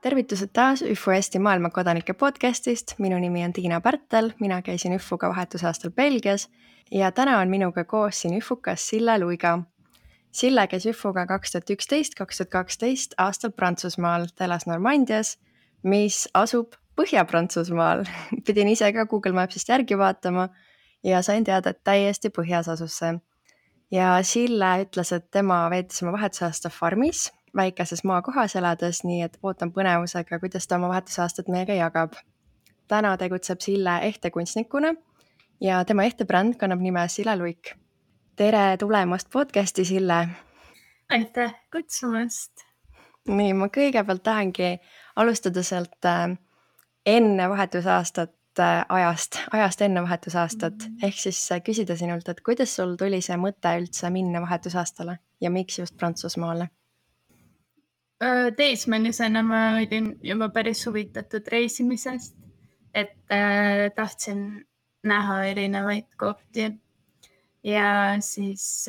Tervitused taas ÜFO Eesti maailmakodanike podcastist. Minu nimi on Tiina Pärtel, mina käisin ÜFOga vahetusaastal Belgias ja täna on minuga koos siin ÜFOkas Sille Luiga. Sille käis ÜFOga 2011-2012 aastal Prantsusmaal, ta elas Normandias, mis asub Põhja-Prantsusmaal. Pidin ise ka Google Mapsist järgi vaatama ja sain teada, et täiesti põhjas asus see. Ja Sille ütles, et tema veetis oma vahetusaasta farmis, väikeses maakohas elades, nii et ootan põnevusega, kuidas ta oma vahetusaastat meiega jagab. Täna tegutseb Sille ehtekunstnikuna ja tema ehtebränd kannab nime Sille Luik. Tere tulemast podcasti, Sille! Aitäh kutsumast! Nii, ma kõigepealt tahangi alustada sealt enne vahetusaastat, ajast enne vahetusaastat, ehk siis küsida sinult, et kuidas sul tuli see mõte üldse minna vahetusaastale ja miks just Prantsusmaale? Teismelisena ma olin juba päris huvitatud reisimisest, et tahtsin näha erinevaid kohti ja siis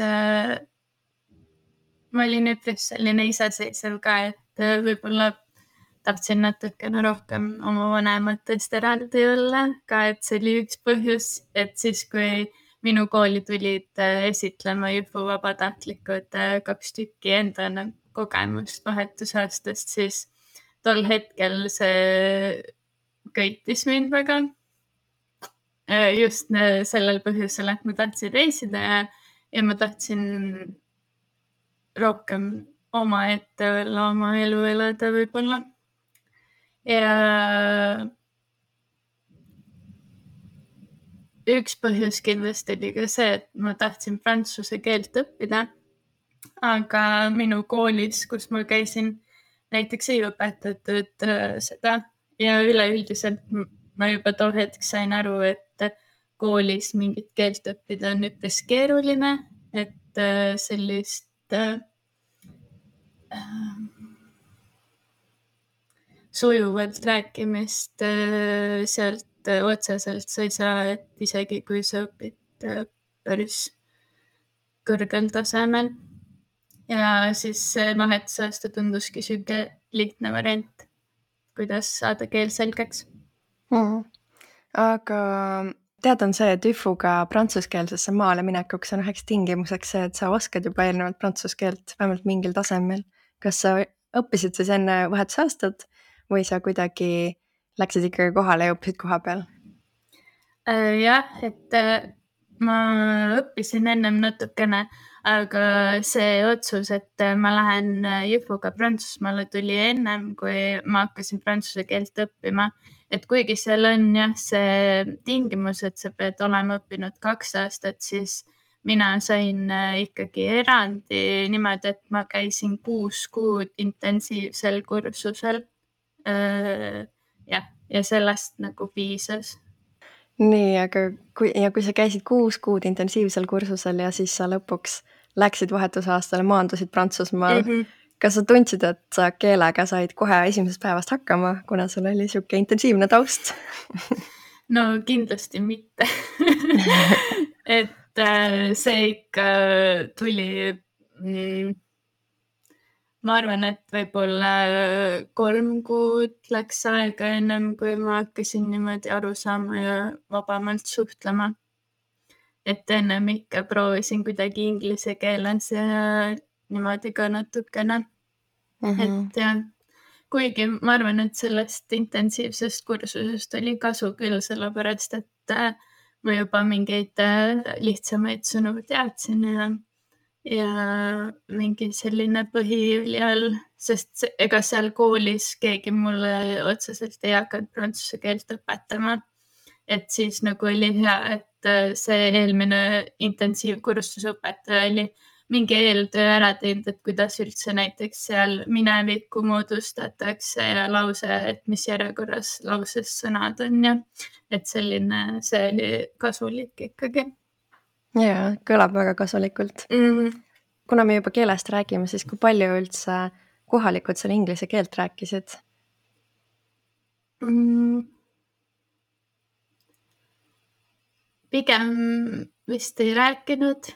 ma olin üpris selline iseseisev ka, et võib-olla tahtsin natukene rohkem oma vanematest eraldi olla ka, et see oli üks põhjus, et siis kui minu kooli tulid esitlema ÜFO vabatahtlikud 2 tükki enda kogemust vahetusaastast, siis tol hetkel see köitis mind väga. Just sellel põhjusel, et ma tahtsin reisida ja ma tahtsin rohkem omaette olla, oma elu elada võib-olla. Ja üks põhjus kindlasti oli ka see, et ma tahtsin prantsuse keelt õppida, aga minu koolis, kus ma käisin, näiteks ei õpetatud seda ja üleüldiselt ma juba too hetk sain aru, et koolis mingit keelt õppida on üpris keeruline, et sellist sujuvalt rääkimist sealt otseselt sa ei saa, et isegi kui sa õpid päris kõrgel tasemel. Ja siis vahetusaasta tunduski süge lihtne variant, kuidas saada keel selgeks. Aga tead on see, et ÜFOga prantsuskeelsesse maale minekuks on üheks tingimuseks see, et sa oskad juba eelnevalt prantsuskeelt vähemalt mingil tasemel. Kas sa õppisid siis enne vahetusaastat või sa kuidagi läksid ikkagi kohale ja õppisid koha peal? Jah, et ma õppisin ennem natukene, aga see otsus, et ma lähen ÜFOga Prantsusmaale tuli ennem, kui ma hakkasin prantsuse keelt õppima. Et kuigi seal on jah see tingimus, et sa pead olema õppinud 2 aastat, siis mina sain ikkagi erandi niimoodi, et ma käisin 6 kuud intensiivsel kursusel. Ja sellest nagu piisas. Nii, aga kui sa käisid 6 kuud intensiivsel kursusel ja siis sa lõpuks läksid vahetusaastale, maandusid Prantsusmaal, kas sa tundsid, et sa keelega said kohe esimesest päevast hakkama, kuna sul oli siuke intensiivne taust? No kindlasti mitte. Et see ikka tuli, ma arvan, et võib-olla 3 kuud läks aega ennem, kui ma hakkasin niimoodi aru saama ja vabamalt suhtlema. Et ennem ikka proovisin kuidagi inglise keeles ja niimoodi ka natukene. Et jah, kuigi ma arvan, et sellest intensiivsest kursusest oli kasu küll, sellepärast, et ma juba mingeid lihtsamaid sõnu teadsin ja mingi selline põhiüli all, sest ega seal koolis keegi mulle otseselt ei hakanud prantsuse keelt õpetama. Et siis nagu oli hea, et see eelmine intensiivkursuse õpetaja oli mingi eeltöö ära teinud, et kuidas üldse näiteks seal minevikku moodustatakse ja lause, et mis järjekorras lauses sõnad on ja et selline, see oli kasulik ikkagi. Jaa, kõlab väga kasulikult. Kuna me juba keelest räägime, siis kui palju üldse kohalikud seal inglise keelt rääkisid? Pigem vist ei rääkinud.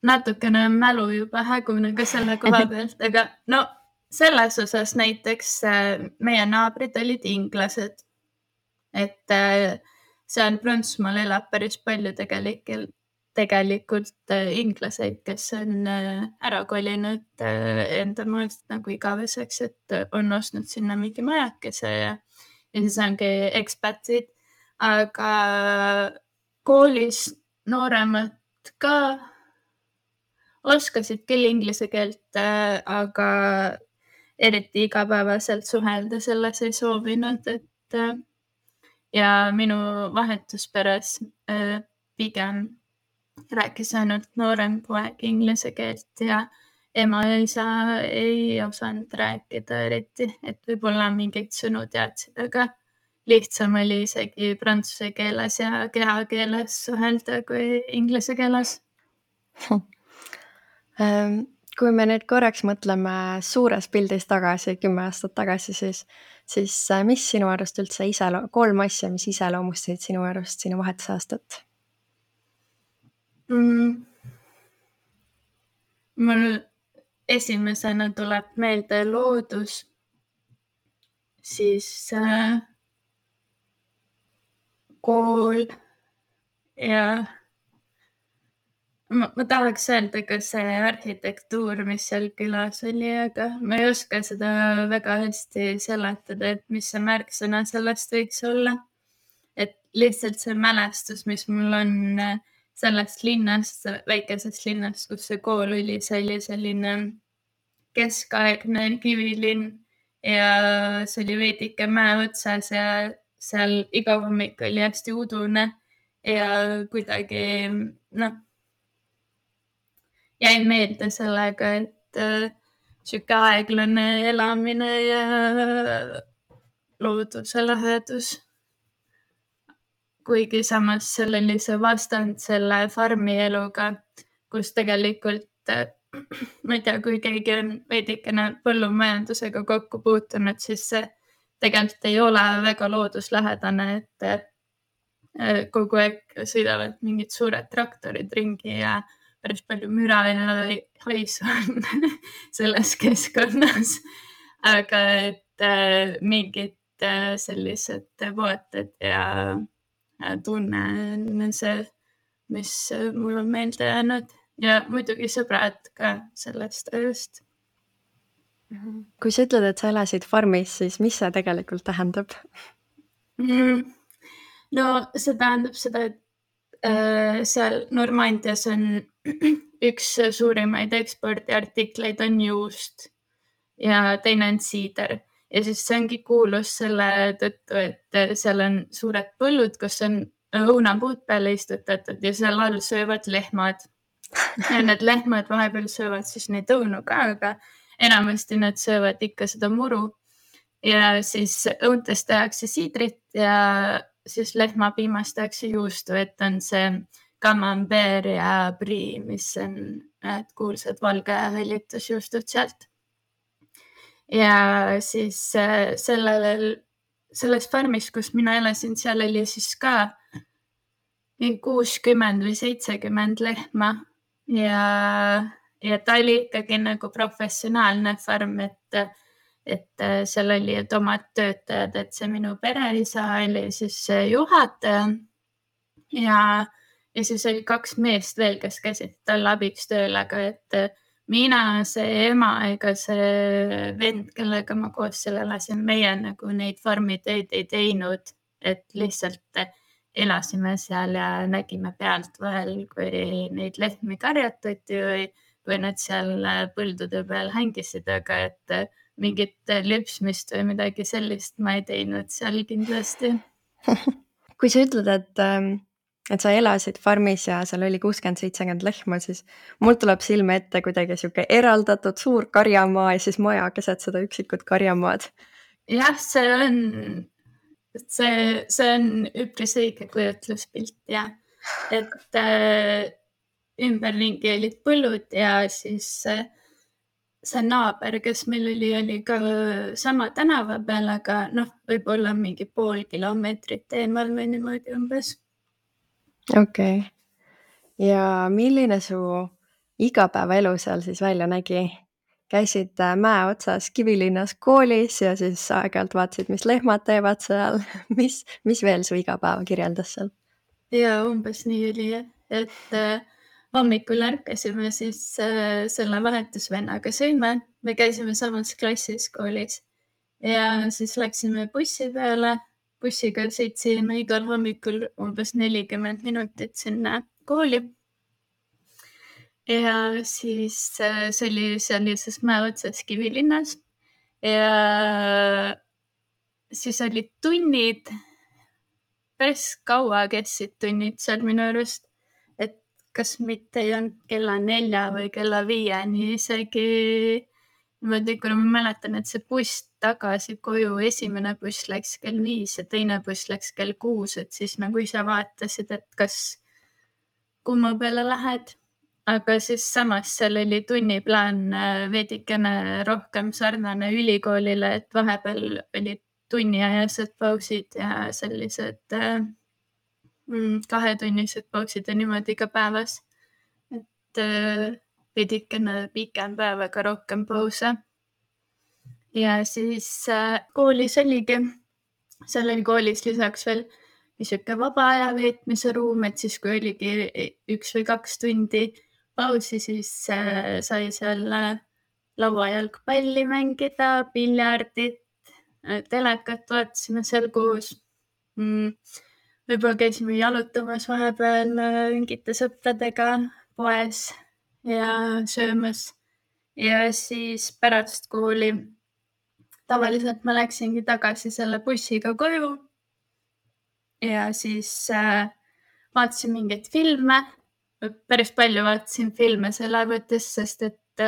Natukene mälu juba hägune ka selle koha pealt, aga no selles osas näiteks meie naabrid olid inglased, et seal Prantsusmaal elab päris palju tegelikult inglaseid, kes on ära kolinud enda maalt nagu igaveseks, et on ostnud sinna mingi majakese ja siis ongi ekspatid, aga koolis nooremad ka oskasid küll inglise keelt, aga eriti igapäevaselt suhelda selles ei soovinud, et ja minu vahetusperes pigem rääkis ainult noorem poeg inglise keelt ja ema ja isa ei osanud rääkida eriti, et võib-olla mingeid sõnu teadsid, aga lihtsam oli isegi prantsuse keeles ja kehakeeles suhelda kui inglise keeles. Kui me nüüd korraks mõtleme suures pildis tagasi, 10 aastat tagasi, siis mis sinu arust üldse 3 asja, mis iseloomustasid sinu arust sinu vahetusaastat? Mul esimesena tuleb meelde loodus, siis kool ja ma tahaks öelda ka see arhitektuur, mis seal külas oli, aga ma ei oska seda väga hästi seletada, et mis see märksõna sellest võiks olla. Et lihtsalt see mälestus, mis mul on sellest linnast, väikesest linnast, kus see kool oli, see oli selline keskaegne kivilinn ja see oli veidike mäe otsas ja seal iga hommik oli hästi udune ja kuidagi jäin meelde sellega, et sihuke aeglane elamine ja looduse lähedus. Kuigi samas seal oli see vastand selle farmi eluga, kus tegelikult, ma ei tea, kui keegi on veidikene põllumajandusega kokku puutunud, siis see tegelikult ei ole väga looduslähedane, et kogu aeg sõidavad mingid suured traktorid ringi ja päris palju müra ja haisu on selles keskkonnas. Aga et mingid sellised vaated ja tunne on see, mis mul on meelde jäänud ja muidugi sõbrad ka sellest ajast. Kui sa ütled, et sa elasid farmis, siis mis see tegelikult tähendab? No see tähendab seda, et seal Normandias on üks suurimaid ekspordiartikleid on juust ja teine on siider. Ja siis see ongi kuulus selle tõttu, et seal on suured põllud, kus on õunapuud peale istutatud ja seal all söövad lehmad. Ja need lehmad vahepeal söövad siis neid õunu ka, aga enamasti nad söövad ikka seda muru. Ja siis õuntest tehakse siidrit ja siis lehmapiimast tehakse juustu, et on see camembert ja brie, mis on kuulsad valge hõllitusjuustud sealt. Ja siis selles farmis, kus mina elasin, seal oli siis ka 60 või 70 lehma ja ta oli ikkagi nagu professionaalne farm, et seal oli omad töötajad, et see minu pereisa oli siis juhataja ja siis oli 2 meest veel, kes käisid talle abiks tööl, aga et mina, see ema ega see vend, kellega ma koos seal elasin, meie nagu neid farmitöid ei teinud, et lihtsalt elasime seal ja nägime pealt vahel, kui neid lehmi karjatati või nad seal põldude peal hängisid, aga et mingit lüpsmist või midagi sellist ma ei teinud seal kindlasti. Kui sa ütled, et sa elasid farmis ja seal oli 60-70 lehma, siis mul tuleb silme ette kuidagi sihuke eraldatud suur karjamaa ja siis maja keset seda üksikut karjamaad. Jah, see on üpris õige kujutluspilt ja et ümberringi olid põllud ja siis see naaber, kes meil oli ka sama tänava peal, aga võib-olla mingi pool kilomeetrit eemal või niimoodi umbes. Okei. Ja milline su igapäevaelu seal siis välja nägi? käisid mäe otsas Kivilinnas koolis ja siis aeg-ajalt vaatasid, mis lehmad teevad seal. mis veel su igapäeva kirjeldas seal? Ja umbes nii oli, et hommikul ärkasime siis selle vahetusvennaga sõime. Me käisime samas klassis koolis ja siis läksime bussi peale. Bussiga sõitsime igal hommikul umbes 40 minutit sinna kooli. Ja siis see oli seal lihtsalt mäe otsas Kivilinnas ja siis olid tunnid, päris kaua kestsid tunnid seal minu arust, et kas mitte ei olnud kella 4 või kella 5 isegi niimoodi, kuna ma mäletan, et see buss tagasi koju, esimene buss läks kell 5 ja teine buss läks kell 6, et siis nagu ise vaatasid, et kas kumma peale lähed. Aga siis samas seal oli tunniplaan veidikene rohkem sarnane ülikoolile, et vahepeal olid tunniajased pausid ja sellised 2-tunnised pausid ja niimoodi ka päevas. Et veidikene pikem päev, aga rohkem pause. Ja siis koolis oligi, seal oli koolis lisaks veel niisugune vaba aja veetmise ruum, et siis kui oligi 1 või 2 tundi pausi, siis sai seal lauajalgpalli mängida, piljardit, telekat vaatasime seal koos. Võib-olla käisime jalutamas vahepeal mingite sõpradega poes ja söömas. Ja siis pärast kooli tavaliselt ma läksingi tagasi selle bussiga koju ja siis vaatasin mingeid filme. Päris palju vaatasin filme seal arvutis, sest et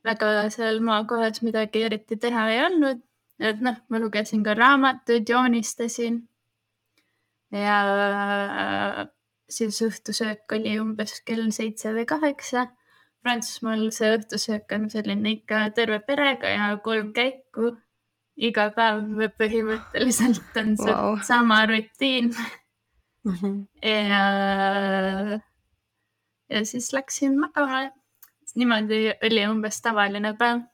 väga seal maakohas midagi eriti teha ei olnud. Et ma lugesin ka raamatuid, joonistasin. Ja siis õhtusöök oli umbes kell 7 või 8. Prantsusmaal see õhtusöök on selline ikka terve perega ja 3 käiku. Iga päev põhimõtteliselt on sama rutiin. Ja siis läksin magama. Niimoodi oli umbes tavaline päev.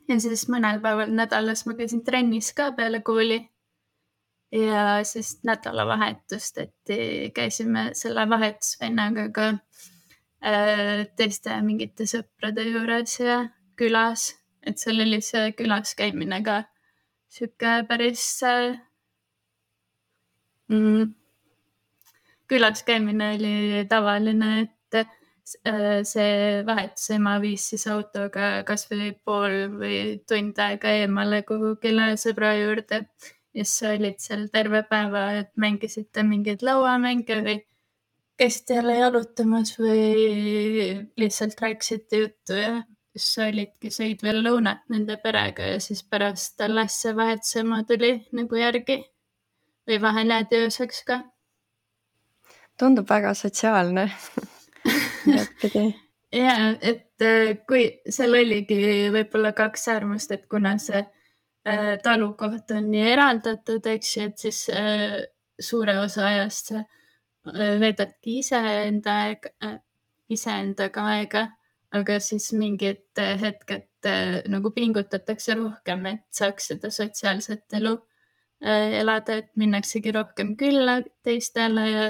Ja siis mõnel päeval nädalas ma käisin trennis ka peale kooli. Ja siis nädalavahetust, et käisime selle vahetusvennaga ka teiste mingite sõprade juures ja külas. Et seal oli see külas käimine ka siuke päris külas käimine oli tavaline, et see vahetusema viis siis autoga kas või pool või tund aega eemale kuhugile sõbra juurde. Ja siis olid seal terve päeva, et mängisite mingeid lauamänge või käisite jälle jalutamas või lihtsalt rääkisite juttu ja siis olidki sõid veel lõunat nende perega ja siis pärast alles see vahetusema tuli nagu järgi või vahel jäädi ööseks ka. Tundub väga sotsiaalne. Ja, et kui seal oligi võib-olla 2 äärmust, et kuna see talukoht on nii eraldatud, eks ju, et siis suure osa ajast veedadki iseendaga aega, aga siis mingid hetked nagu pingutatakse rohkem, et saaks seda sotsiaalset elu elada, et minnaksegi rohkem külla teistele ja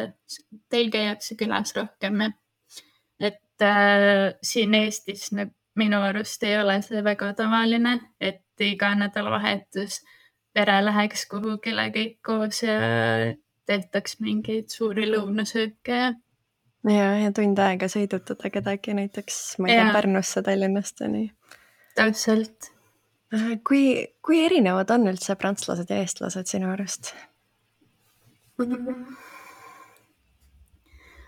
teil käiakse külas rohkem. Et siin Eestis minu arust ei ole see väga tavaline, et iga nädalavahetus pere läheks kuhugile kõik koos ja tehtaks mingeid suuri lõunasööke. Ja tund aega sõidutada kedagi näiteks, ma ei tea, Pärnusse, Tallinnast ja nii. Täpselt. Kui erinevad on üldse prantslased ja eestlased sinu arust?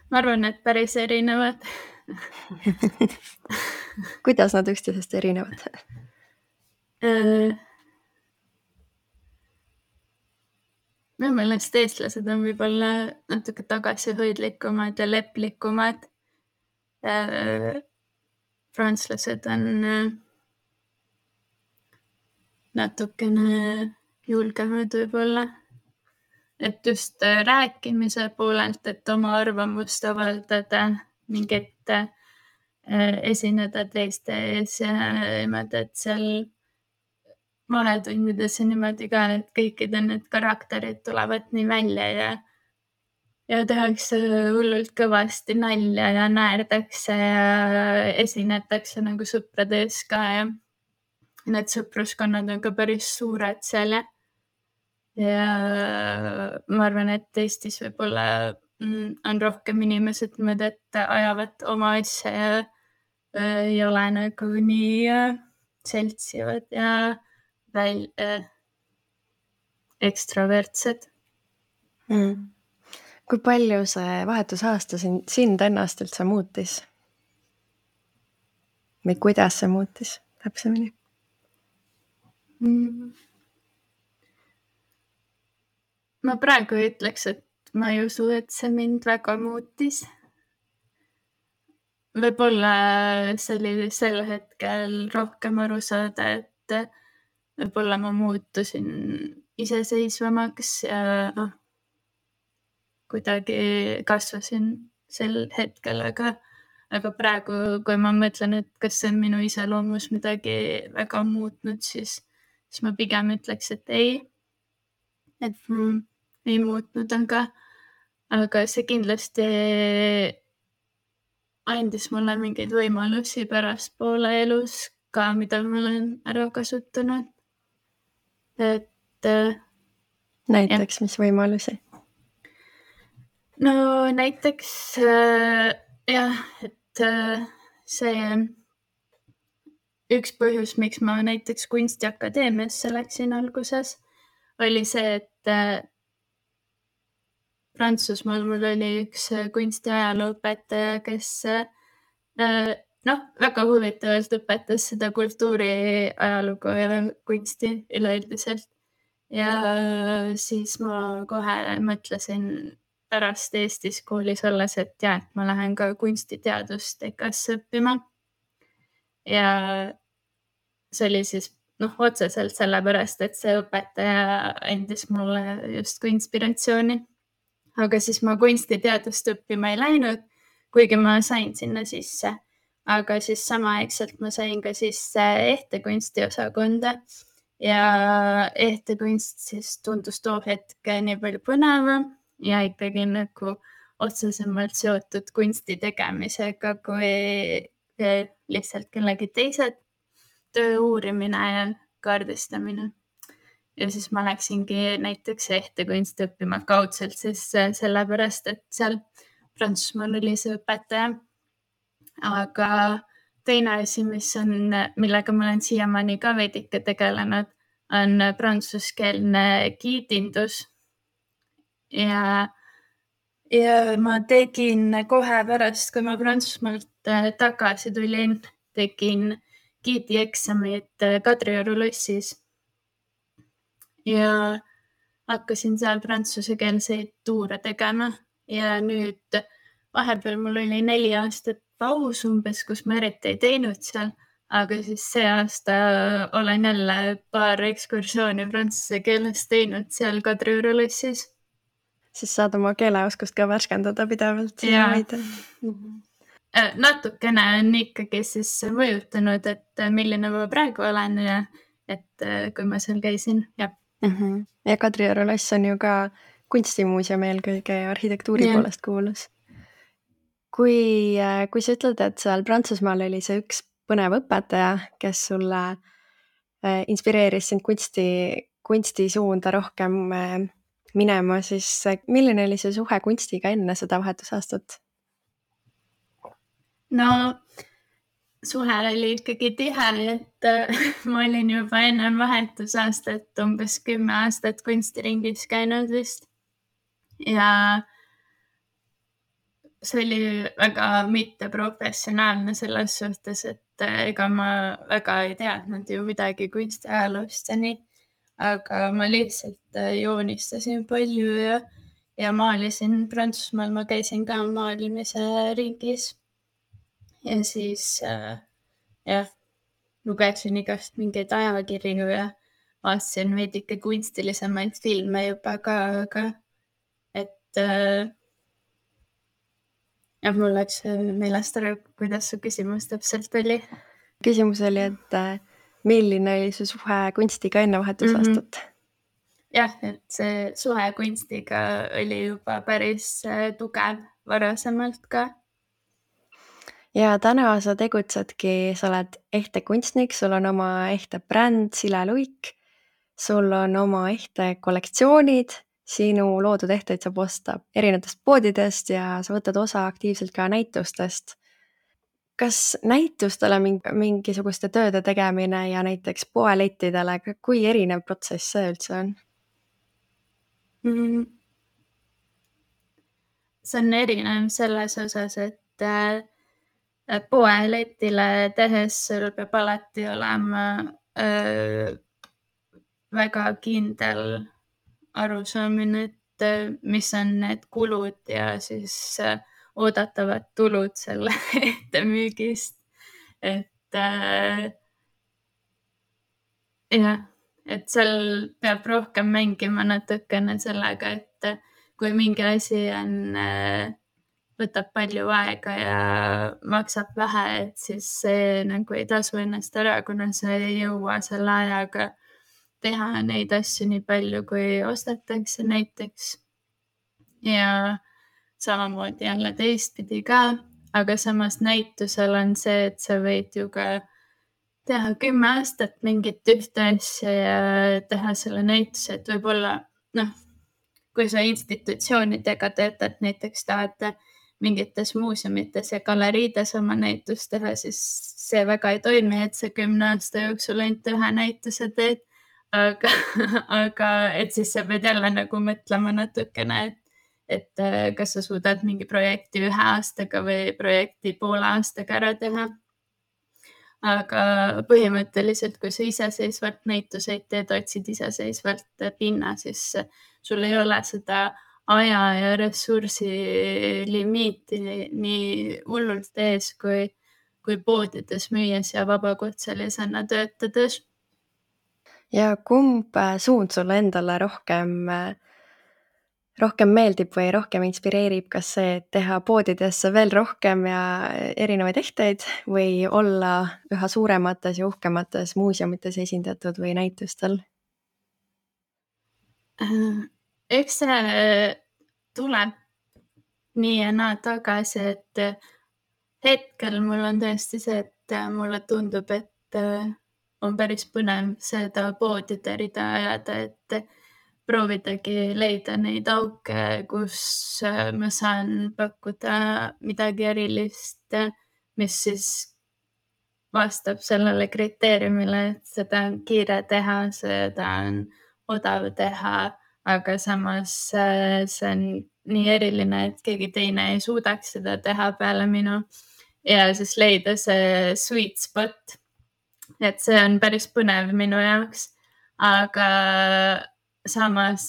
Ma arvan, et päris erinevad. Kuidas nad üksteisest erinevad? Minu meelest eestlased on võib-olla natuke tagasihoidlikumad ja leplikumad. Prantslased on natukene julgemad võib-olla. Et just rääkimise poolelt, et oma arvamust avaldada, mingit esineda teiste ees ja niimoodi, et seal vahetundides ja niimoodi ka, et kõikide need karakterid tulevad nii välja ja tehakse hullult kõvasti nalja ja naerdakse ja esinetakse nagu sõprade ees ka ja need sõpruskonnad on ka päris suured seal ja ma arvan, et Eestis võib-olla on rohkem inimesed niimoodi, et ajavad oma asja ja ei ole nagu nii seltsivad ja ekstravertsed. Kui palju see vahetusaasta sind ennast üldse muutis? Või kuidas see muutis täpsemini? Ma praegu ütleks, et ma ei usu, et see mind väga muutis. Võib-olla see oli sel hetkel rohkem aru saada, et võib-olla ma muutusin iseseisvamaks ja kuidagi kasvasin sel hetkel, aga praegu, kui ma mõtlen, et kas see on minu iseloomus midagi väga muutnud, siis ma pigem ütleks, et ei. Et ei muutnud, aga see kindlasti andis mulle mingeid võimalusi pärastpoole elus ka, mida ma olen ära kasutanud. Et näiteks, mis võimalusi? No näiteks jah, et see üks põhjus, miks ma näiteks Kunstiakadeemiasse läksin alguses, oli see, et Prantsusmaal mul oli üks kunstiajalooõpetaja, kes väga huvitavalt õpetas seda kultuuriajalugu ja kunsti üleüldiselt. Ja siis ma kohe mõtlesin pärast Eestis koolis olles, et ma lähen ka kunstiteadust EKA-sse õppima. Ja see oli siis otseselt sellepärast, et see õpetaja andis mulle justkui inspiratsiooni. Aga siis ma kunstiteadust õppima ei läinud, kuigi ma sain sinna sisse. Aga siis samaaegselt ma sain ka sisse ehtekunsti osakonda ja ehtekunst siis tundus too hetk nii palju põnevam ja ikkagi nagu otsesemalt seotud kunsti tegemisega kui lihtsalt kellegi teise töö uurimine ja kaardistamine. Ja siis ma läksingi näiteks ehtekunsti õppima kaudselt siis sellepärast, et seal Prantsusmaal oli see õpetaja. Aga teine asi, millega ma olen siiamaani ka veidike tegelenud, on prantsuskeelne giidindus. Ja ma tegin kohe pärast, kui ma Prantsusmaalt tagasi tulin, tegin giidieksamit Kadrioru lossis. Ja hakkasin seal prantsusekeelseid tuure tegema ja nüüd vahepeal mul oli 4 aastat paus umbes, kus ma eriti ei teinud seal, aga siis see aasta olen jälle paar ekskursiooni prantsuse keeles teinud seal Kadrioru lossis. Siis saad oma keeleoskust ka värskendada pidevalt. Natukene on ikkagi siis mõjutanud, et milline ma praegu olen ja et kui ma seal käisin. Ja Kadrioru loss on ju ka kunstimuuseumi eelkõige arhitektuuri poolest kuulus. Kui sa ütled, et seal Prantsusmaal oli see üks põnev õpetaja, kes sulle inspireeris sind kunstisuunda rohkem minema, siis milline oli see suhe kunstiga enne seda vahetusaastat? No suhe oli ikkagi tihe, et ma olin juba enne vahetusaastat umbes 10 aastat kunstiringis käinud vist. Ja see oli väga mitteprofessionaalne selles suhtes, et ega ma väga ei teadnud ju midagi kunstiajaloost ja nii. Aga ma lihtsalt joonistasin palju ja maalisin Prantsusmaal, ma käisin ka maalimise ringis. Ja siis lugesin igast mingeid ajakirju ja vaatasin veidike kunstilisemaid filme juba ka, aga et ja mul läks meelest ära, kuidas su küsimus täpselt oli. Küsimus oli, et milline oli su suhe kunstiga enne vahetusaastat? Jah, et see suhe kunstiga oli juba päris tugev varasemalt ka. Ja täna sa tegutsedki, sa oled ehte kunstnik, sul on oma ehte bränd Sille Luik, sul on oma ehte kollektsioonid, sinu loodud ehteid saab osta erinevatest poodidest ja sa võtad osa aktiivselt ka näitustest. Kas näitustele mingisuguste tööde tegemine ja näiteks poelettidele, kui erinev protsess see üldse on? See on erinev selles osas, et poeletile tehes sul peab alati olema väga kindel arusaamine, et mis on need kulud ja siis oodatavad tulud selle ehte müügist. Et jah, et seal peab rohkem mängima natukene sellega, et kui mingi asi on, võtab palju aega ja maksab vähe, et siis see nagu ei tasu ennast ära, kuna sa ei jõua selle ajaga teha neid asju nii palju, kui ostetakse näiteks. Ja samamoodi jälle teistpidi ka, aga samas näitusel on see, et sa võid ju ka teha 10 aastat mingit ühte asja ja teha selle näituse, et võib-olla kui sa institutsioonidega töötad, näiteks tahad mingites muuseumites ja galeriides oma näitust teha, siis see väga ei toimi, et sa 10 aasta jooksul ainult ühe näituse teed, aga et siis sa pead jälle nagu mõtlema natukene, et kas sa suudad mingi projekti 1 aastaga või projekti poole aastaga ära teha. Aga põhimõtteliselt, kui sa iseseisvalt näituseid teed, otsid iseseisvalt pinna, siis sul ei ole seda aja ja ressursi limiiti nii hullult ees, kui poodides müües ja vabakutselisena töötades. Ja kumb suund sulle endale rohkem meeldib või rohkem inspireerib, kas see, et teha poodidesse veel rohkem ja erinevaid ehteid või olla üha suuremates ja uhkemates muuseumites esindatud või näitustel? Eks see tuleb nii ja naa tagasi, et hetkel mul on tõesti see, et mulle tundub, et on päris põnev seda poodide rida ajada, et proovidagi leida neid auke, kus ma saan pakkuda midagi erilist, mis siis vastab sellele kriteeriumile, et seda on kiire teha, seda on odav teha, aga samas see on nii eriline, et keegi teine ei suudaks seda teha peale minu. Ja siis leida see sweet spot. Et see on päris põnev minu jaoks, aga samas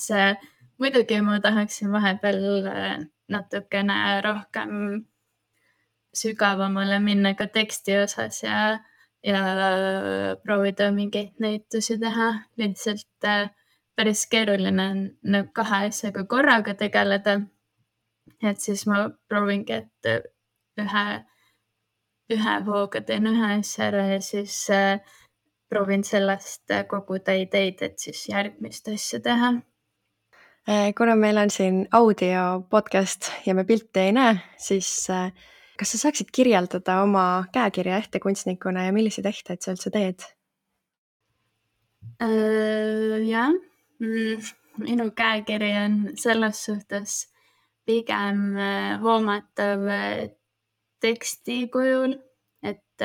muidugi ma tahaksin vahepeal natukene rohkem sügavamale minna ka teksti osas ja proovida mingeid näitusi teha. Lihtsalt päris keeruline on 2 asjaga korraga tegeleda. Et siis ma proovingi, et ühe hooga teen ühe asja ära ja siis proovin sellest koguda ideid, et siis järgmist asja teha. Kuna meil on siin audio podcast ja me pilti ei näe, siis kas sa saaksid kirjeldada oma käekirja ehtekunstnikuna ja milliseid ehteid sa üldse teed? Jah, minu käekiri on selles suhtes pigem hoomatav teksti kujul, et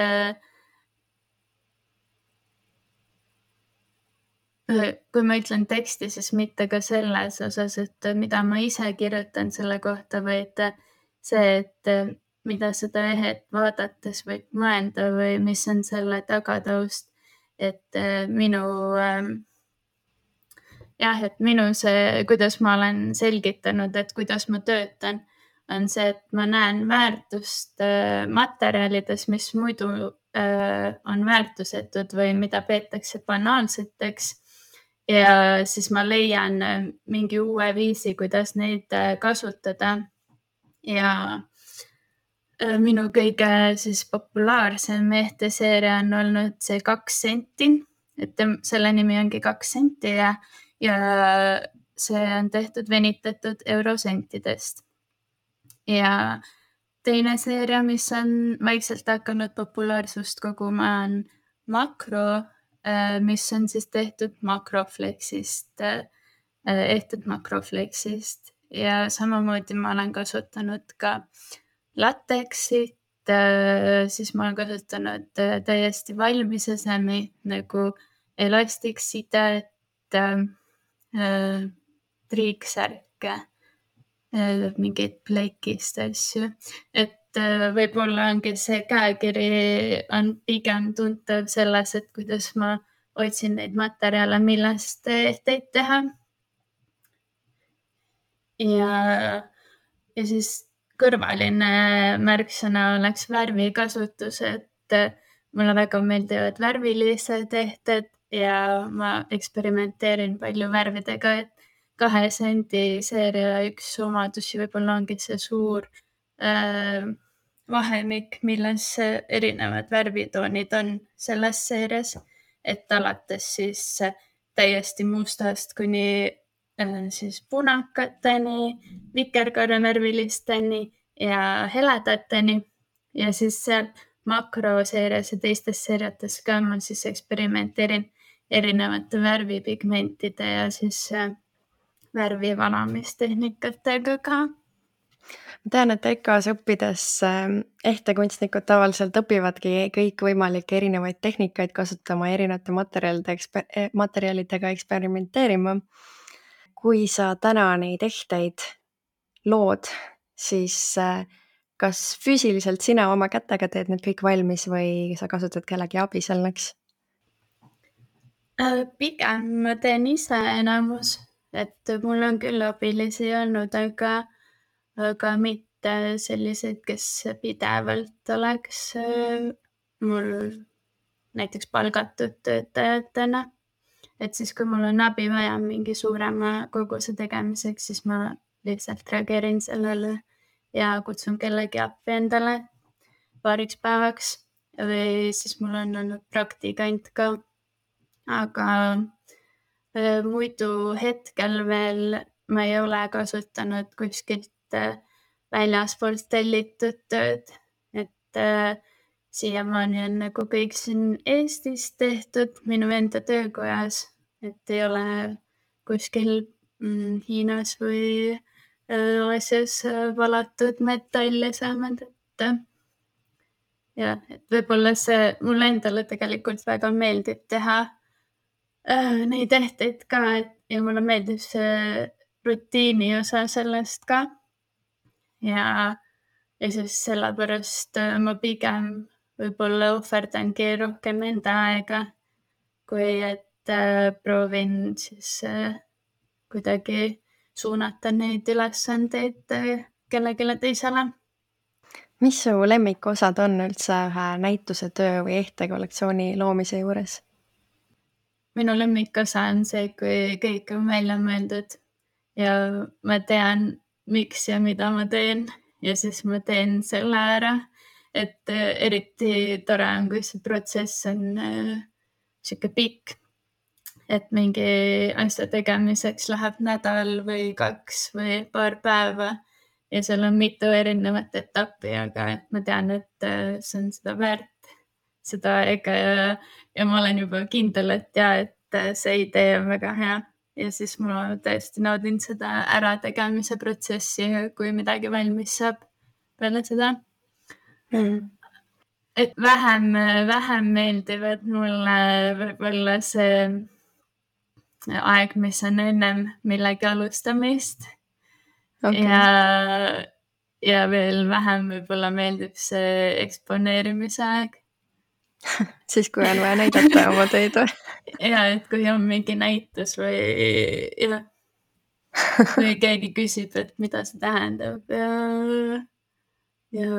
kui ma ütlen teksti, siis mitte ka selles osas, et mida ma ise kirjutan selle kohta, vaid see, et mida seda ehet vaadates võib mõelda või mis on selle tagataust, et minu see, kuidas ma olen selgitanud, et kuidas ma töötan, on see, et ma näen väärtust materjalides, mis muidu on väärtusetud või mida peetakse banaalseteks. Ja siis ma leian mingi uue viisi, kuidas neid kasutada. Ja Minu kõige siis populaarsem ehteseeria on olnud see 2 senti, et selle nimi ongi 2 senti ja see on tehtud venitatud eurosentidest. Ja teine seeria, mis on vaikselt hakanud populaarsust koguma, on Makro, mis on siis tehtud makroflexist, ehtud makroflexist ja samamoodi ma olen kasutanud ka latexit, siis ma olen kasutanud täiesti valmis esemi nagu elastiksidet, triiksärke, mingeid plekist asju, et võib-olla ongi see käekiri on pigem tuntav selles, et kuidas ma otsin neid materjale, millest ehteid teha. Ja siis kõrvaline märksõna oleks värvikasutus, et mulle väga meeldivad värvilised ehted ja ma eksperimenteerin palju värvidega, et 2 sendi seeria üks omadusi võib-olla ongi see suur vahemik, milles erinevad värvitoonid on selles seerias, et alates siis täiesti mustast kuni siis punakateni, vikerkaarevärvilisteni ja heledateni ja siis seal makroseerias ja teistes seeriates ka ma siis eksperimenteerin erinevate värvipigmentide ja siis värvivalamistehnikatega ka. Ma tean, et EKA-s õppides ehtekunstnikud tavaliselt õpivadki kõikvõimalikke erinevaid tehnikaid kasutama, erinevate materjalidega eksperimenteerima. Kui sa täna neid ehteid lood, siis kas füüsiliselt sina oma kätega teed need kõik valmis või sa kasutad kellegi abi selleks? Pigem ma teen ise enamus, et mul on küll abilisi olnud, aga mitte selliseid, kes pidevalt oleks mul näiteks palgatud töötajatena. Et siis, kui mul on abi vaja mingi suurema koguse tegemiseks, siis ma lihtsalt reageerin sellele ja kutsun kellegi appi endale paariks päevaks või siis mul on olnud praktikant ka. Aga muidu hetkel veel ma ei ole kasutanud kuskilt väljaspoolt tellitud tööd, et siiamaani on nagu kõik siin Eestis tehtud minu enda töökojas, et ei ole kuskil Hiinas või Aasias valatud metalle saanud, et ja, et võib-olla see mulle endale tegelikult väga meeldib teha neid ehteid ka ja mulle meeldib see rutiini osa sellest ka. Ja siis sellepärast ma pigem võib-olla ohverdangi rohkem enda aega, kui et proovin siis kuidagi suunata neid ülesandeid kellelegi teisele. Mis su lemmikosad on üldse ühe näituse töö või ehtekollektsiooni loomise juures? Minu lemmikosa on see, kui kõik on välja mõeldud ja ma tean, miks ja mida ma teen ja siis ma teen selle ära. Et eriti tore on, kui see protsess on siuke pikk, et mingi asja tegemiseks läheb nädal või 2 või paar päeva ja seal on mitu erinevat etappi, aga et ma tean, et see on seda väärt, seda aega ja ma olen juba kindel, et see idee on väga hea ja siis ma tõesti naudin seda ärategemise protsessi, kui midagi valmis saab peale seda. Et vähem meeldivad mulle võib-olla see aeg, mis on ennem millegi alustamist. Okay. Ja veel vähem võib-olla meeldib see eksponeerimise aeg. Siis kui on vaja näidata oma töid või? Ja, et kui on mingi näitus või keegi küsib, et mida see tähendab ja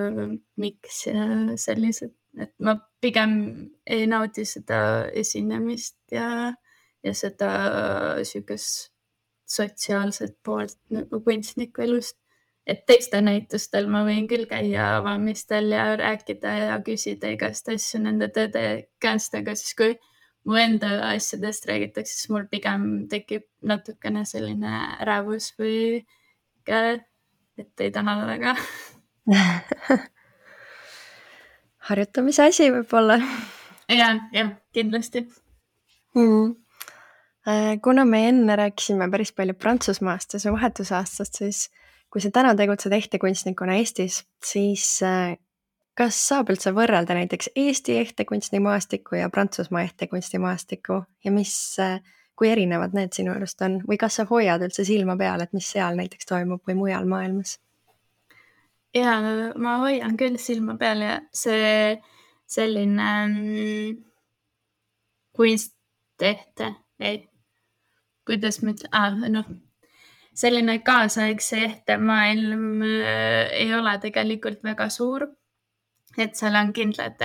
miks ja sellised, et ma pigem ei naudi seda esinemist ja seda siukest sotsiaalset poolt nagu kunstniku elust. et teiste näitustel ma võin küll käia avamistel ja rääkida ja küsida igast asju nende tõde käest, aga siis kui mu enda asjadest räägitakse, siis mul pigem tekib natukene selline ärevus või et ei taha väga. Harjutamise asi võib-olla. jah, kindlasti. Kuna me enne rääkisime päris palju Prantsusmaast ja su vahetusaastast, siis kui sa täna tegutsed ehtekunstnikuna Eestis, siis kas saab üldse võrrelda näiteks Eesti ehtekunstimaastikku ja Prantsusmaa ehtekunstimaastikku ja kui erinevad need sinu arust on? Või kas sa hoiad üldse silma peal, et mis seal näiteks toimub või mujal maailmas? Ja ma hoian küll silma peal ja see selline kunstehte, kuidas ma ütlen, selline kaasaegse ehtemaailm ei ole tegelikult väga suur, et seal on kindlad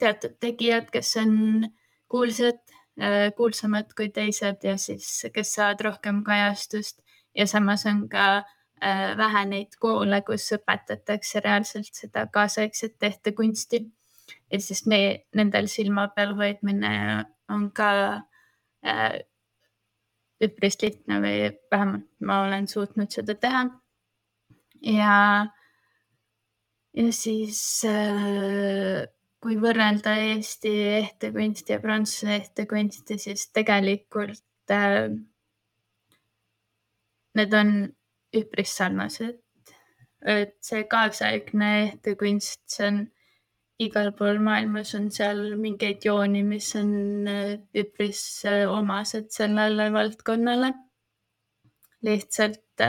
teatud tegijad, kes on kuulsamad kui teised ja siis, kes saavad rohkem kajastust ja samas on ka vähe neid koole, kus õpetatakse reaalselt seda kaasaegset ehtekunsti. Et siis nendel silma peal hoidmine on ka üpris lihtne või vähemalt ma olen suutnud seda teha. Ja siis kui võrrelda Eesti ehtekunsti ja Prantsuse ehtekunsti, siis tegelikult need on üpris sarnased. Et see kaasaegne ehtekunst, see on igal pool maailmas on seal mingeid jooni, mis on üpris omased sellele valdkonnale. Lihtsalt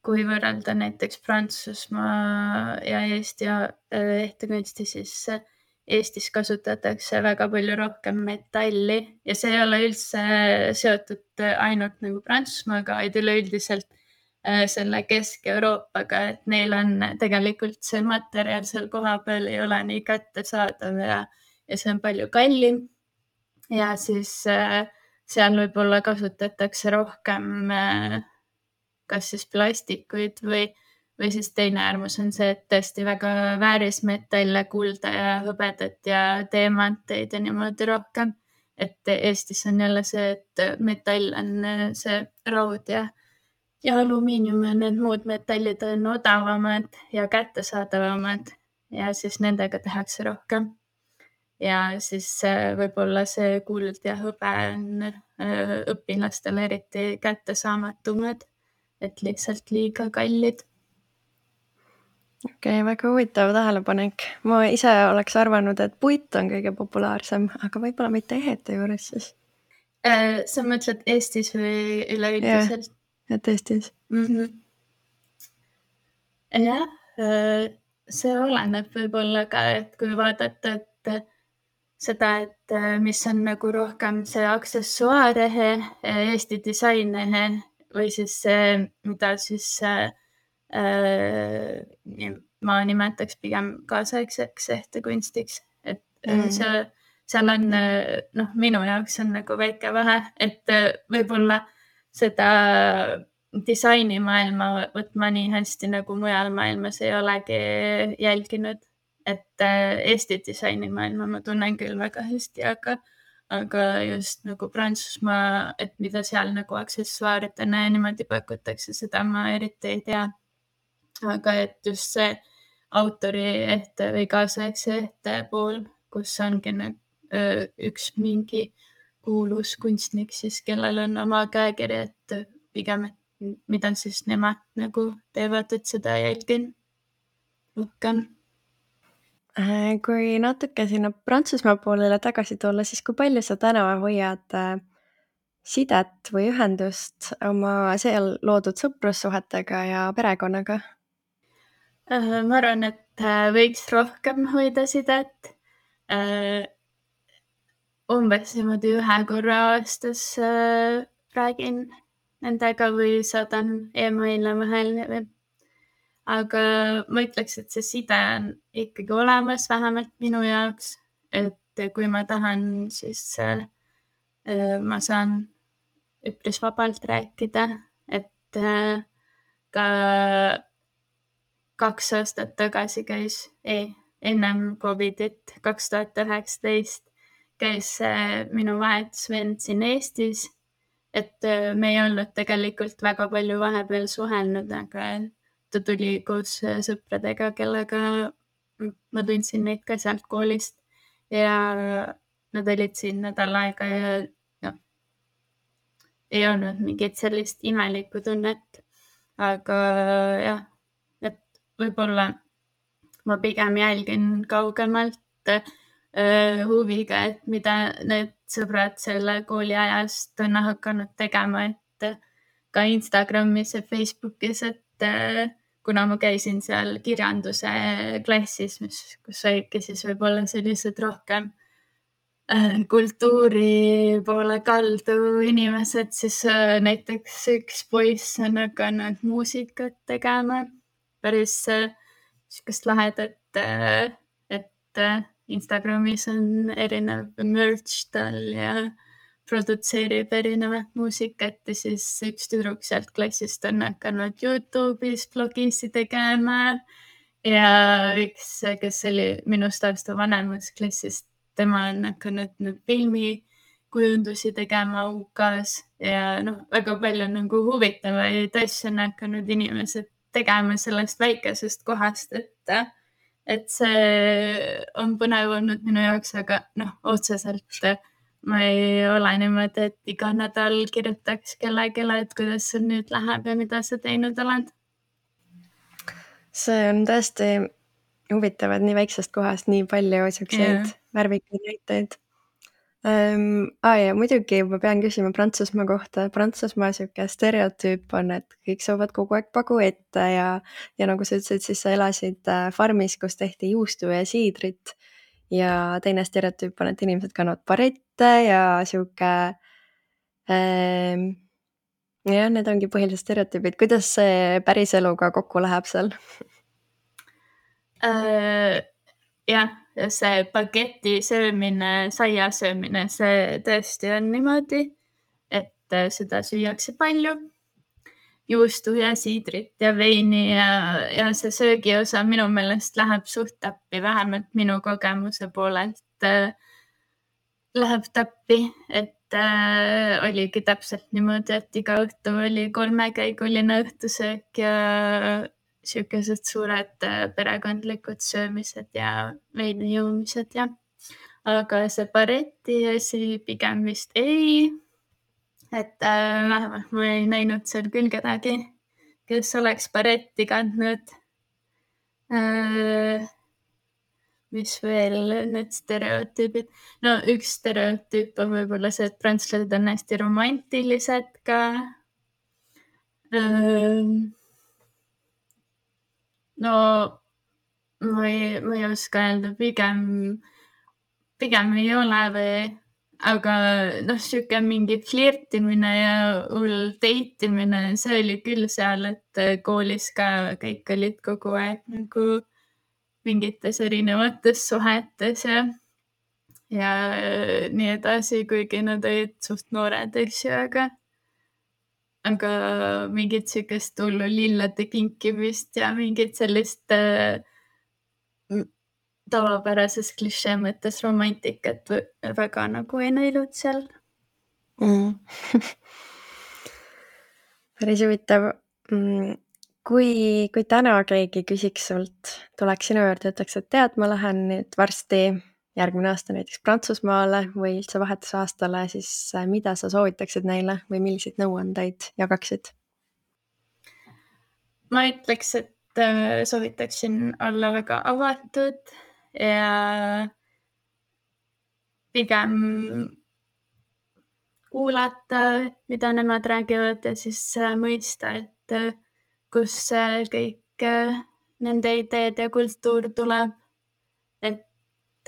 kui võrrelda näiteks Prantsusmaa ja Eesti ehtekunsti, siis Eestis kasutatakse väga palju rohkem metalli ja see ei ole üldse seotud ainult nagu Prantsusmaaga, vaid üleüldiselt selle Kesk-Euroopaga, et neil on tegelikult see materjal seal kohapeal ei ole nii kättesaadav ja see on palju kallim. Ja siis seal võib-olla kasutatakse rohkem kas siis plastikuid või siis teine äärmus on see, et tõesti väga väärismetalle, kulda ja hõbedat ja teemanteid ja niimoodi rohkem. Et Eestis on jälle see, et metall on see raud ja alumiinium ja need muud metallid on odavamad ja kättesaadavamad ja siis nendega tehakse rohkem. Ja siis võib-olla see kuld ja hõbe on õpilastele eriti kättesaamatumad, et lihtsalt liiga kallid. Okei, väga huvitav tähelepanek. Ma ise oleks arvanud, et puit on kõige populaarsem, aga võib-olla mitte ehete juures siis. Sa mõtled Eestis või üleüldiselt? Et Eestis. Jah, see oleneb võib-olla ka, et kui vaadata, et seda, et mis on nagu rohkem see aksessuaarehe, Eesti disainehe või siis see, mida siis ma nimetaks pigem kaasaegseks ehtekunstiks, et seal on, minu jaoks on nagu väike vahe, et võib-olla seda disainimaailma võtma nii hästi nagu mujal maailmas ei olegi jälginud, et Eesti disainimaailma ma tunnen küll väga hästi, aga just nagu Prantsusmaa, et mida seal nagu aksessuaaridena ja niimoodi pakutakse, seda ma eriti ei tea. Aga et just see autori ehte või kaasaegse ehte pool, kus ongi üks mingi kuulus kunstnik siis, kellel on oma käekiri, et pigem, et mida siis nemad nagu teevad, et seda jälgin rohkem. Kui natuke sinna Prantsusmaa poolele tagasi tulla, siis kui palju sa täna hoiad sidet või ühendust oma seal loodud sõprussuhetega ja perekonnaga? Ma arvan, et võiks rohkem hoida sidet. Umbes niimoodi 1 korra aastas räägin nendega või saadan emaile vahel. Aga ma ütleks, et see side on ikkagi olemas, vähemalt minu jaoks. Et kui ma tahan, siis ma saan üpris vabalt rääkida, et ka 2 aastat tagasi käis, ennem Covidit, 2019 käis minu vahetusvend siin Eestis, et me ei olnud tegelikult väga palju vahepeal suhelnud, aga ta tuli koos sõpradega, kellega ma tundsin neid ka sealt koolist ja nad olid siin nädal aega ja ei olnud mingit sellist imelikku tunnet, aga jah, et võib-olla ma pigem jälgin kaugemalt huviga, et mida need sõbrad selle kooli ajast on hakanud tegema, et ka Instagramis ja Facebookis, et kuna ma käisin seal kirjanduse klassis, kus olidki siis võib-olla sellised rohkem kultuuri poole kaldu inimesed, siis näiteks üks poiss on hakanud muusikat tegema, päris sihukest lahedat, et Instagramis on erinev merch tal ja produtseerib erinevat muusikat ja siis üks tüdruk sealt klassist on hakanud YouTube'is blogisi tegema ja üks, kes oli minust aasta vanemas klassist, tema on hakanud filmikujundusi tegema UK-s ja väga palju nagu huvitavaid asju on hakanud inimesed tegema sellest väikesest kohast, et see on põnev olnud minu jaoks, aga otseselt ma ei ole niimoodi, et iga nädal kirjutaks kellelegi, et kuidas sul nüüd läheb ja mida sa teinud oled. See on tõesti huvitav, et nii väiksest kohast nii palju siukseid värvikaid näiteid. Ja muidugi ma pean küsima Prantsusmaa kohta. Prantsusmaa siuke stereotüüp on, et kõik saavad kogu aeg pagu ette ja nagu sa ütlesid, siis sa elasid farmis, kus tehti juustu ja siidrit ja teine stereotüüp on, et inimesed kannavad barette ja siuke jah, need ongi põhilised stereotüübid. Kuidas see päris eluga kokku läheb seal? Jah, see bageti söömine, saia söömine, see tõesti on niimoodi, et seda süüakse palju. Juustu ja siidrit ja veini ja see söögiosa minu meelest läheb suht täppi, vähemalt minu kogemuse poolelt läheb täppi, et oligi täpselt niimoodi, et iga õhtu oli 3-käiguline õhtusöök ja siukesed suured perekondlikud söömised ja veini joomised ja aga see bareti asi pigem vist ei, et vähemalt ma ei näinud seal küll kedagi, kes oleks baretti kandnud. Mis veel need stereotüübid? Üks stereotüüp on võib-olla see, et prantslased on hästi romantilised ka. Ma ei oska öelda, pigem ei ole või, aga siuke mingi flirtimine ja hull deitimine, see oli küll seal, et koolis ka kõik olid kogu aeg nagu mingites erinevates suhetes ja nii edasi, kuigi nad olid suht noored, aga mingit siukest hullu lillade kinkimist ja mingit sellist tavapärases klišee mõttes romantikat väga nagu ei näinud seal. Päris huvitav. Kui täna keegi küsiks sult, tuleks sinu juurde ja ütleks, et tead, ma lähen nüüd varsti järgmine aasta näiteks Prantsusmaale või üldse vahetusaastale, siis mida sa soovitaksid neile või milliseid nõuandeid jagaksid? Ma ütleks, et soovitaksin olla väga avatud ja pigem kuulata, mida nemad räägivad ja siis mõista, et kus kõik nende ideed ja kultuur tuleb. Et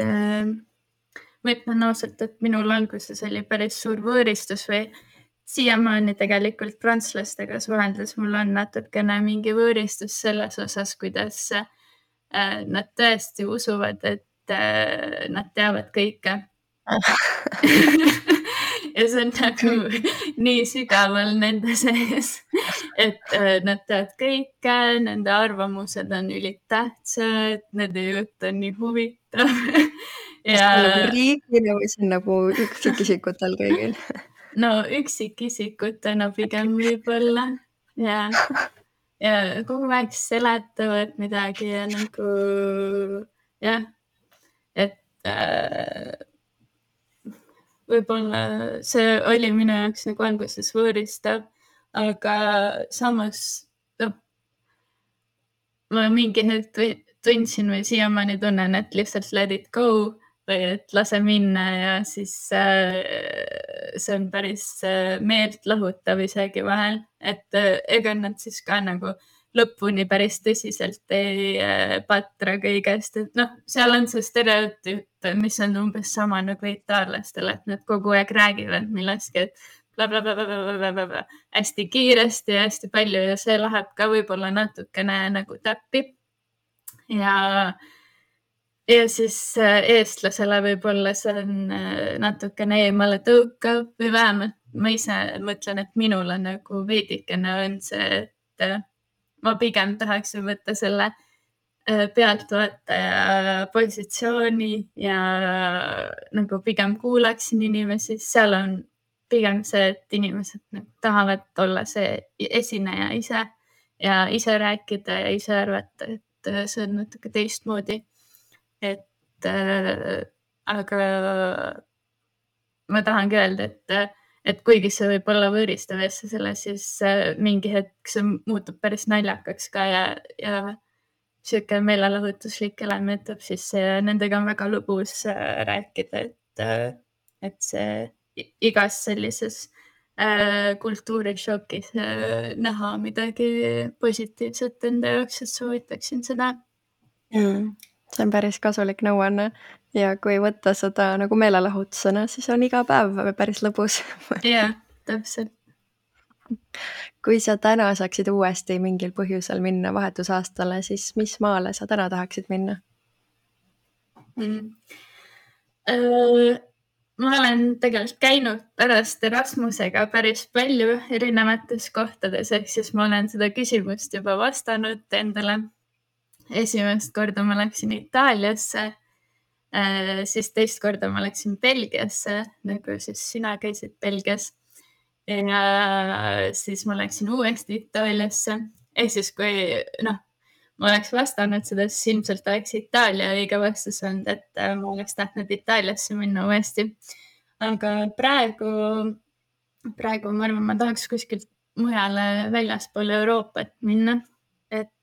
ma ütlen ausalt, et minul alguses oli päris suur võõristus või siiamaani tegelikult prantslastega suheldes mul on natukene mingi võõristus selles osas, kuidas nad tõesti usuvad, et nad teavad kõike. Ja see on nagu nii sügaval nende sees, et nad teavad kõike, nende arvamused on ülitähtsad, nende jutt on nii huvitav. Kas see on nagu riigile või see on nagu üksikisikutel kõigil? No üksikisikutena pigem võib-olla ja kogu aeg seletavad midagi ja nagu jah, et võib-olla see oli minu jaoks nagu alguses võõristav, aga samas ma mingi hetk tundsin või siiamaani tunnen, et lihtsalt let it go või et lase minna ja siis see on päris meelt lahutav isegi vahel, et ega nad siis ka nagu lõpuni päris tõsiselt ei patra kõigest, et seal on see stereotüüp, mis on umbes sama nagu itaallastel, et nad kogu aeg räägivad millestki, et blablabla, hästi kiiresti ja hästi palju ja see läheb ka võib-olla natukene nagu täppi. Ja siis eestlasele võib-olla see on natukene eemale tõukav või vähemalt ma ise mõtlen, et minul on nagu veidikene on see, et ma pigem tahaksin võtta selle pealtvaataja positsiooni ja nagu pigem kuulaksin inimesi, seal on pigem see, et inimesed nagu tahavad olla see esineja ise ja ise rääkida ja ise arvata, et see on natuke teistmoodi. Et aga ma tahangi öelda, et kuigi see võib olla võõristav asja selle, siis mingi hetk see muutub päris naljakaks ka ja siuke meelelahutuslik element, siis nendega on väga lõbus rääkida, et see igas sellises kultuurishokis näha midagi positiivset enda jaoks, et soovitaksin seda. See on päris kasulik nõuanne ja kui võtta seda nagu meelelahutusena, siis on iga päev päris lõbus. Jah, täpselt. Kui sa täna saaksid uuesti mingil põhjusel minna vahetusaastale, siis mis maale sa täna tahaksid minna? Ma olen tegelikult käinud pärast Erasmusega päris palju erinevates kohtades, ehk siis ma olen seda küsimust juba vastanud endale. Esimest korda ma läksin Itaaliasse, siis teist korda ma läksin Belgiasse, nagu siis sina käisid Belgias. Ja siis ma läksin uuesti Itaaliasse. Ehk siis kui ma oleks vastanud seda, siis ilmselt oleks Itaalia õige vastus olnud, et ma oleks tahtnud Itaaliasse minna uuesti. Aga praegu ma arvan, ma tahaks kuskilt mujale väljaspool Euroopat minna, et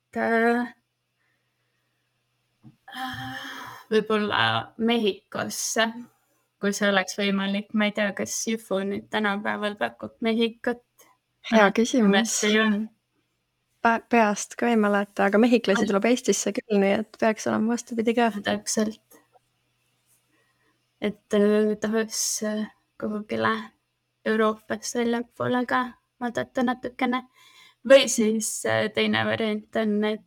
võib-olla Mehhikosse, kui see oleks võimalik. Ma ei tea, kas Jufu nüüd tänapäeval pakub Mehhikot. Hea küsimus. Peast ka ei mäleta, aga mehhiklasi tuleb Eestisse küll, nii et peaks olema vastupidi ka. Täpselt. Et tahaks kuhugile Euroopas väljapoole ka vaadata natukene. Või siis teine variant on, et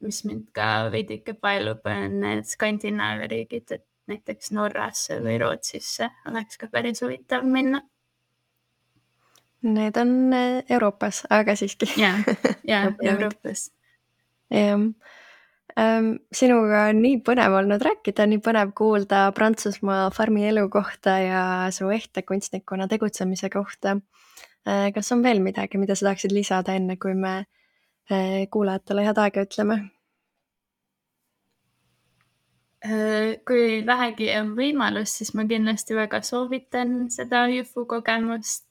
mis mind ka veidike paelub, on need Skandinaavia riigid, et näiteks Norrasse või Rootsisse oleks ka päris huvitav minna. Need on Euroopas, aga siiski. Ja, Euroopas. Sinuga on nii põnev olnud rääkida, nii põnev kuulda Prantsusmaa farmi elu kohta ja su ehtekunstnikuna tegutsemise kohta. Kas on veel midagi, mida sa tahaksid lisada enne, kui me kuulajatele head aega ütleme? Kui vähegi on võimalus, siis ma kindlasti väga soovitan seda Jufu kogemust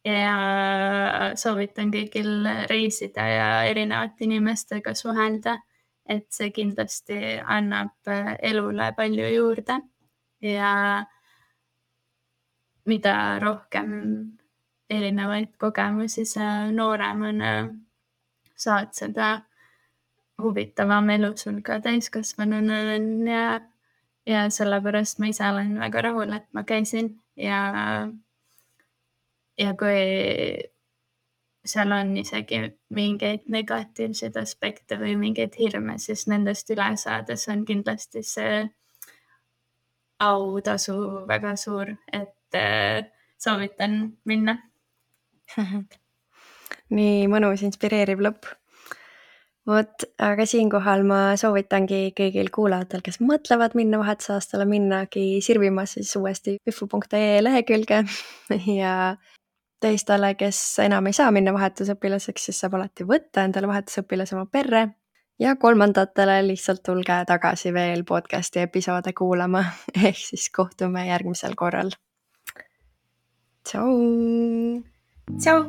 ja soovitan kõigil reisida ja erinevate inimestega suhelda, et see kindlasti annab elule palju juurde ja mida rohkem erinevaid kogemusi sa nooremana saad, seda huvitavam elu sul ka täiskasvanuna on ja sellepärast ma ise olen väga rahul, et ma käisin ja kui seal on isegi mingeid negatiivseid aspekte või mingeid hirme, siis nendest üle saades on kindlasti see autasu väga suur, et soovitan minna. nii mõnus, inspireeriv lõpp. Vot, aga siinkohal ma soovitangi kõigil kuulajatel, kes mõtlevad minna vahetusaastale, minnagi sirvima siis uuesti üfu.ee lehekülge ja teistele, kes enam ei saa minna vahetusõpilaseks, siis saab alati võtta endale vahetusõpilase oma perre ja kolmandatele lihtsalt tulge tagasi veel podcasti episoode kuulama ehk siis kohtume järgmisel korral. Tšau! Tšau!